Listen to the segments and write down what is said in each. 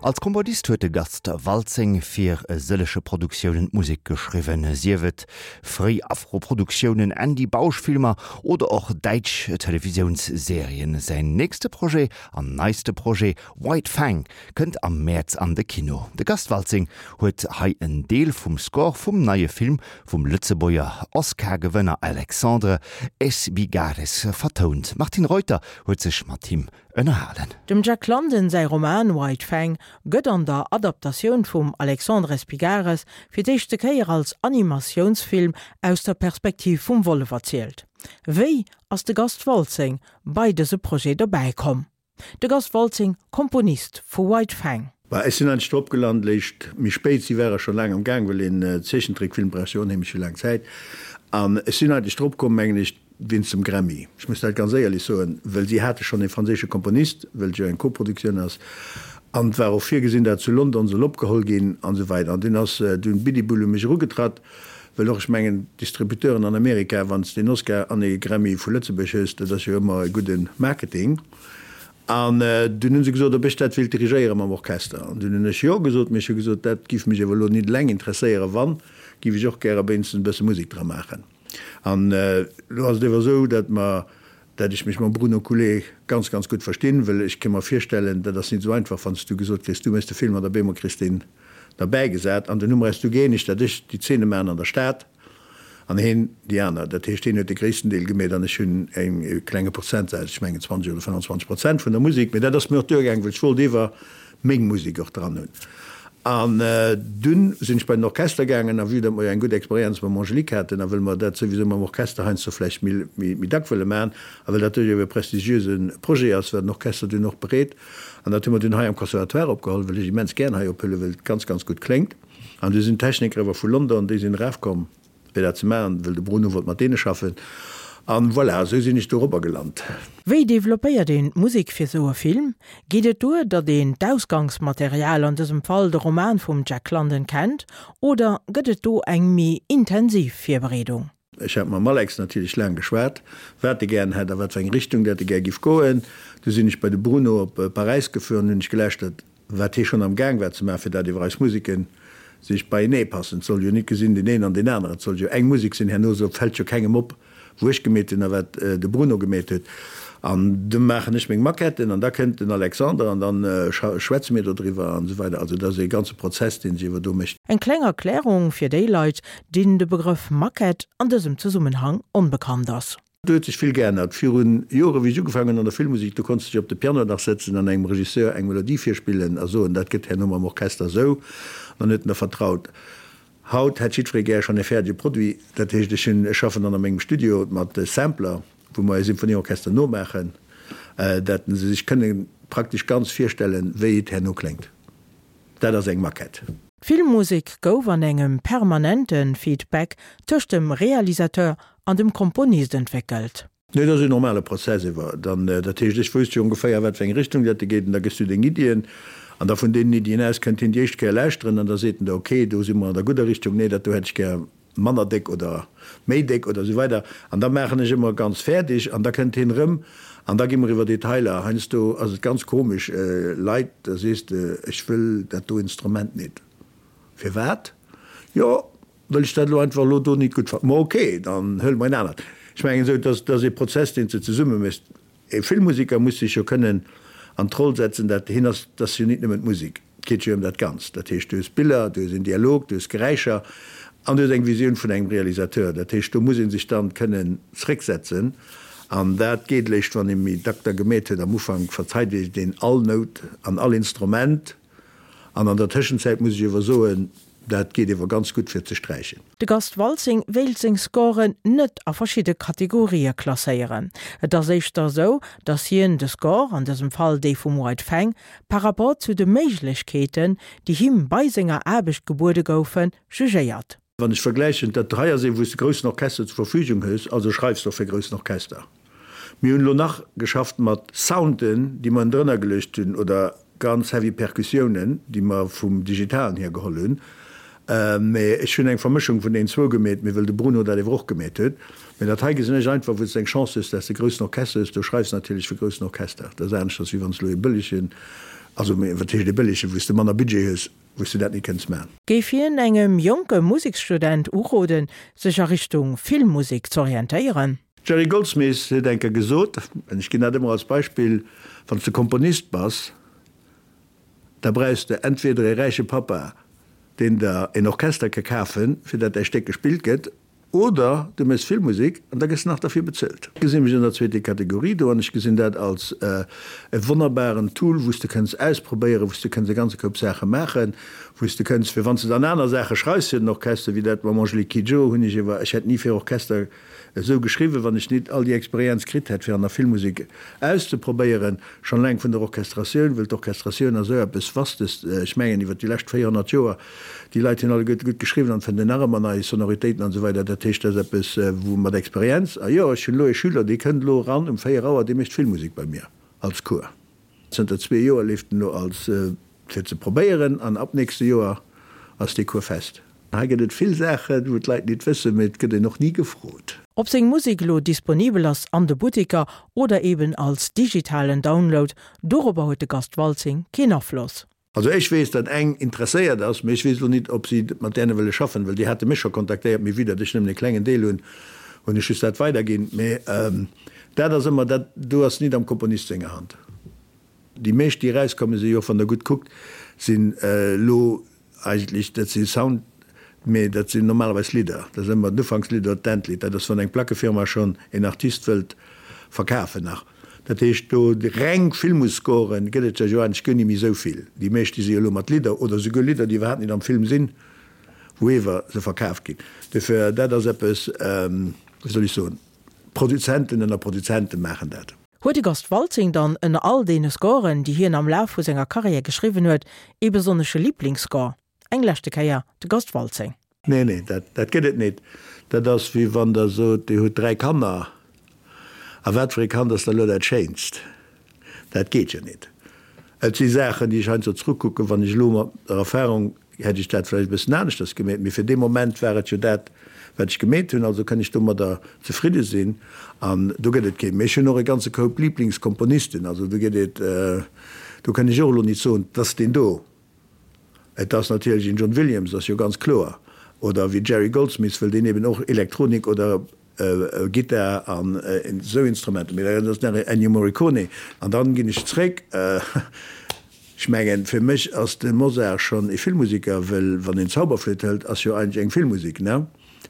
Als Komponist huet de Gast Waltzing fir e sëllege Produktiounen d'Musek geschriwwen, sief et fréi Afro-Produktiounen, Andy Bausch-Filmer oder och däitsch Televisiounsserien. Säin nächste Projet an neiste Projet White Fang kënnt am Mäerz an de Kino. De Gast Waltzing huet hei en Deel vum Score vum neie Film vum Lëtzebuerger Oscar-Gewënner Alexandre Espigares vertount. D'Martine Reuter huet sech mat him ënnerhalen. Dem Jack London säi Roman White Fang gëtt an der Adaptatioun vum Alexandre Espigares fir d'éischte Kéier als Animatiounsfilm aus der Perspektiv vum Wollef erzielt. Wéi ass de Gast Waltzing bei dëse Projet dobäi komm? De Gast Waltzing, Komponist vu White Fang. Bah, ech sinn eigentlech drop gelant léischt méi spéit. Si ware scho laang am Gaang, well een Zeechentrickfilm brauch jo onheemlech vill laang Zäit. An ech sinn eigentlech drop komm, mengen ech, Wéinst dem Grammy. Ech muss dat ganz éierlech soen, well si hate schonn ee franséische Komponist, well et jo eng Koproduktioun ass, an et war och virgesinn, dat zu London soll opgeholl ginn an esou weider. An dunn ass dunn Bidibul u mech erugetratt, well och, ech mengen, d'Distributeuren an Amerika, wann s de en Oscar an ee Grammy vu Lëtzebuerg hues, dat ass jo ëmmer e gudde Marketing. An dunn hu se gesot, ob ech dat wéilt dirigéiere mam Orchester. An dunn hunn ech jo gesot, mee ech hu gesot, dat giff mech awer elo nit eleng interesséieren, wann, giff ech och gäre wéinstens e bësse Musek dra maachen. An elo ass et ewer esou, datt mer, datt ech mech mam Bruno Coulé ganz, ganz gutt verstinn, wëll ech ka mer virstellen, dat ass nit esou einfach, wann s du gesot kriss, du méchs de Film an op eemol kriss deen derbäigesat. An dunn hu mer eis du gëeenegt, datt ech déi Zeene maachen an der Stad an heen déi aner. Dat heescht, heen huet de gréissten Deel gemeet an ech hunn e klenge Prozentsaz, ech mengen 20 oder 25 Prozent vun der Musek. Mee dat ass mir och duergaangen, wëll ech wollt ewer meng Musek och dran hunn. An dunn sinn ech bei den Orchester gaangen, a vue datt mer jo eng gutt Experienz mam Angélique haten a wëll mer dat souwisou mam Orchester heiansdo vläicht méi méi dack wëlle maachen a well dat duerch e prestigiöse Projet ass, war den Orchester dunn och bereet. An dat hu mer dunn hei am Conservatoire opgeholl, wëll ech immens gären hei ophuelen, wëll et ganz, ganz gutt kléngt. An du sinn d'Techniker ewer vu London, déi sinn erafkomm. Fir dat ze maachen, wëll de Bruno wollt mat deene schaffen. An voilà, esou sinn ech dorobber gelant. Wéi developpéiert een d'Musek fir sou e Film? Geet et duer, datt een d'Ausgangsmaterial, an dësem Fall de Roman vum Jack London, kennt, oder gëtt et do eng méi intensiv Virbereedung? Ech hat mam Alex natierlech laang geschwat, wat e gären hätt a wat fir eng Richtung dat e gär giff goen. Du sinn ech bei de Bruno op Paräis gefuer an hunn ech geläschtert, wat hie schonn am Gaang war ze maachen, fir dat iwwer eis Museken sech beienee passen. Et soll jo nit gesinn deen een an deen aneren, et soll jo eng Musek sinn. Herno so fält jo kengem op, wou ech gemeet hunn a wat de Bruno gemeet huet. An du maachen ech meng Maquetten an da kënnt den Alexander an dann schwätze mir dodriwwer an esou weider. Also dat ass ee ganze Prozess, dee sech iwwer do mécht. Eng kleng Erklärung fir déi Leit, deenen de Begrëff Maquette an dësem Zesummenhang onbekannt ass. Do huet sech vill geännert. Virun Jore wéi ech ugefaangen hunn an der Filmmusek, do konns de dech op de Piano nach sëtzen an engem Regisseur eng Melodie virspillen a soen, dat gëtt herno mam Orchester esou, an dann huet en der vertraut. Haut hätt jiddweree gär schonn e fäerdege Produit. Dat heescht, ech hunn, ech schaffen dann a mengem Studio mat Sampler, wou mer e Symphonieorchester nomaachen, dat se sech kënne praktesch ganz virstellen, wéi et herno kléngt. Dat ass eng Maquette. D'Filmmusek gouf an engem permanente Feedback tëscht dem Realisateur an dem Komponist entwéckelt. Nee, dat ass en normale Prozess ewer dann. Dat heescht, ech wousst jo ongeféier, wat fir eng Richtung dat e geet, an da gëss du deng Iddien, an da vun deenen Iddien aus kënnt hien déi éischt Kéier lauschteren, an da seet en der, ok, do si mer an der gudder Richtung, nee, dat do hätt ech gär manner déck oder méi déck oder esou weider. An da maachen ech ëmmer ganz fäerdeg, an da kënnt hien erëm, an da gi mer iwwer Detailer. Heiansdo ass et ganz komesch, Leit, da sees de, ech wëll dat do Instrument nit. Firwat? Jo, Wëll ech dat elo einfach elo do nit gutt fannen. Ma ok, dann huele mer en anert. Ech mengen esou, dat ass ee Prozess, deen s de zesumme méchs. E Filmmuseker muss sech jo kënnen an d'Roll setzen, dat hien ass, dat ass jo nit nëmmen d'Musek, et geet jo ëm dat Ganzt. Dat heescht, du hues Biller, du hues en Dialog, du hues Geräischer an du hues eng Visioun vun engem Realisateur. Dat heescht, do muss ee sech dann kënnen zrécksetzen an dat geet léischt, wann ee méi dack da gemeet huet. Am Ufank verzeit ee deen all Nout an all Instrument an an der Tëschenzäit muss ech iewer soen, Dat geet ewer ganz gutt fir ze sträichen. De Gast Waltzing wéilt seng Scoren net a verschidde Kategorië klasséieren. Et ass éischter esou, datt hien de Score, an dësem Fall dee vum White Fang, par rapport zu de Méiglechkeeten, déi him bei senger Aarbecht gebuede goufen, jugéiert. Wann ech vergläichen, dat hei ass ee wou s de groussen Orchester zur Verfügung hues, also schreifs de och fir groussen Orchester. Mir hunn elo nach geschafft mat Sounden, déi mer ënnendrënner geluecht hunn, oder ganz heavy Perkussiounen, déi mer vum Digitalen hier geholl hunn. Mä ech hunn eng Vermëschung vun deenen zwou gemeet, mee wëll de Bruno dat ewer och gemeet huet. Mä dat hei gesinn ech einfach, wou s de eng Chance hues, dass de groussen Orchester hues, do schreifs de natierlech fir groussen Orchester. Dat ass aneschters, wéi wann s de elo ee bëllege. Also, wat heescht e bëllegen, wou s de manner Budget hues, wou s de dat nit kënns man. Géif hien engem jonke Museksstudent uroden, sech a Richtung Filmmusek z'orientéieren? Jerry Goldsmith huet eng Kéier gesot, an ech ginn dat ëmmer als Beispill, Wann s de Komponist bass, da brauchs de entweder ee räiche Pappa, deen der een Orchester ka kafen, fir dat däi Stéck gespillt gëtt, oder du méchs Filmmusek an da gëss nach derfir bezuelt. Ech gesi mech an der zweete Kategorie do an ech gesinn dat als e wonnerbaren Tool, wou s de kënns ausprobéieren, wou s de kënns e ganze Koup Saache maachen, wou s de kënns, fir wann s de dann aner Saache schreifs fir den Orchester, wéi dat mam Angélique Kidjo hunn ech ewer, ech hätt ni fir Orchester esou geschriwwen, wann ech nit all déi Experienz kritt hätt, fir an der Filmmusek auszeprobéieren, schonn eleng vun der Orchestratioun, wëll d'Orchestratioun ass esou eppes Vastes, ech mengen iwwer déi lescht 400 Joer, déi Leit hunn alleguerte gutt geschriwwen an fënnt een nach ëmmer nei Sonoritéiten an esou weider. Dat heescht, dat ass eppes, wou mat Experienz, a jo, ech hunn elo ee Schüler, dee kënnt elo eran um 4 Auer, dee mécht Filmmusek bei mir als Cours. Zënter zwee Joer leeft en elo als fir ze probéieren an ab nächste Joer ass dee Cours fest. Hei gëtt et vill Saachen, wou d'Leit nit wëssen, mee et gëtt een och ni gefrot. Ob seng Musek elo disponibel ass an de Butteker oder eben als digitalen Download, dorobber huet de Gast Waltzing keen Afloss. Also ech weess, datt eng interesséiert ass, mee ech weess elo nit, ob si mat däne wëlle schaffen, well déi hate mech scho kontaktéiert, mee vue datt ech nëmmen e klengen Deel hunn, hunn ech just dat weiderginn. Mee dat ass ëmmer, dat do ass nit am Komponist senger Hand. Déi meescht déi erauskommen, si jo och, wann Der gutt kuckt, sinn elo eigentlech, dat si Sound, mee dat sinn normalerweis Lidder. Dat ass ëmmer d'Ufankslidd oder d'Endlidd. Dat ass, wann eng Plackefirma schonn een Artist wëllt verkafen nach. Dat heescht, do reng Filmscoren gëtt et der jo eigentlech guer ni méi esou vill. Déi meescht, déi si jo elo mat Lidder oder souguer Lidder, déi iwwerhaapt net am Film sinn, wou ewer se verkaaft ginn. Dofir, dat ass eppes, wéi soll ech soen, Produzenten ënner Produzente maachen dat. Huet de Gast Waltzing dann ënner all deene Scoren, déi hien am Laf vu senger Karriär geschriwwen huet, ee besonnesche Liblingsscore? Eng leschte Kéier de Gast Waltzing. Nee, nee, dat, dat gëtt et nit. Dat ass wéi wann Der sot, Dir hutt 3 Kanner, a wat fir ee Kand ass da elo dat schéinst? Dat geet jo nit. Et si Saachen, déi ech heiansdo zrückkucken, wann ech elo mat der Erfahrung hätt ech dat vläicht e bëssen aneschters gemeet, mee fir dee Moment war et jo dat, wat ech gemeet hunn, also kënn ech domadder zefridde sinn an do gëtt et keen. Mee ech hunn och e ganze Koup Liblingskomponisten, also do gëtt et, do kënn ech och elo nit soen, 't ass deen do. Et ass natierlech een John Williams, ass jo ganz kloer, oder wéi Jerry Goldsmith, wëll deen eben och Elektronik oder Gittar an esou Instrumenter, mee dat ass nach Ennio Morricone. An dann ginn ech zréck, ech mengen fir mech ass de Mozart schonn e Filmmusiker, wëll wann een d'Zauberflöte hëlt, ass jo eigentlech eng Filmmusik, ne?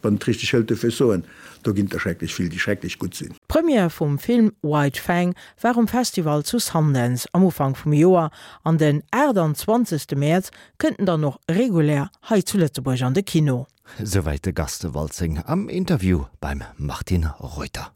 Wann et richteg hëlt. Dofir ech soen, do ginn et der schrecklech vill, déi schrecklech gutt sinn. D'Première vum Film White Fang war um Festival zu Sundance am Ufank vum Joer an den 28. Mäerz kënnt en dann och regulär hei zu Lëtzebuerg an de Kino. Souwäit de Gast Waltzing am Interview beim Martine Reuter.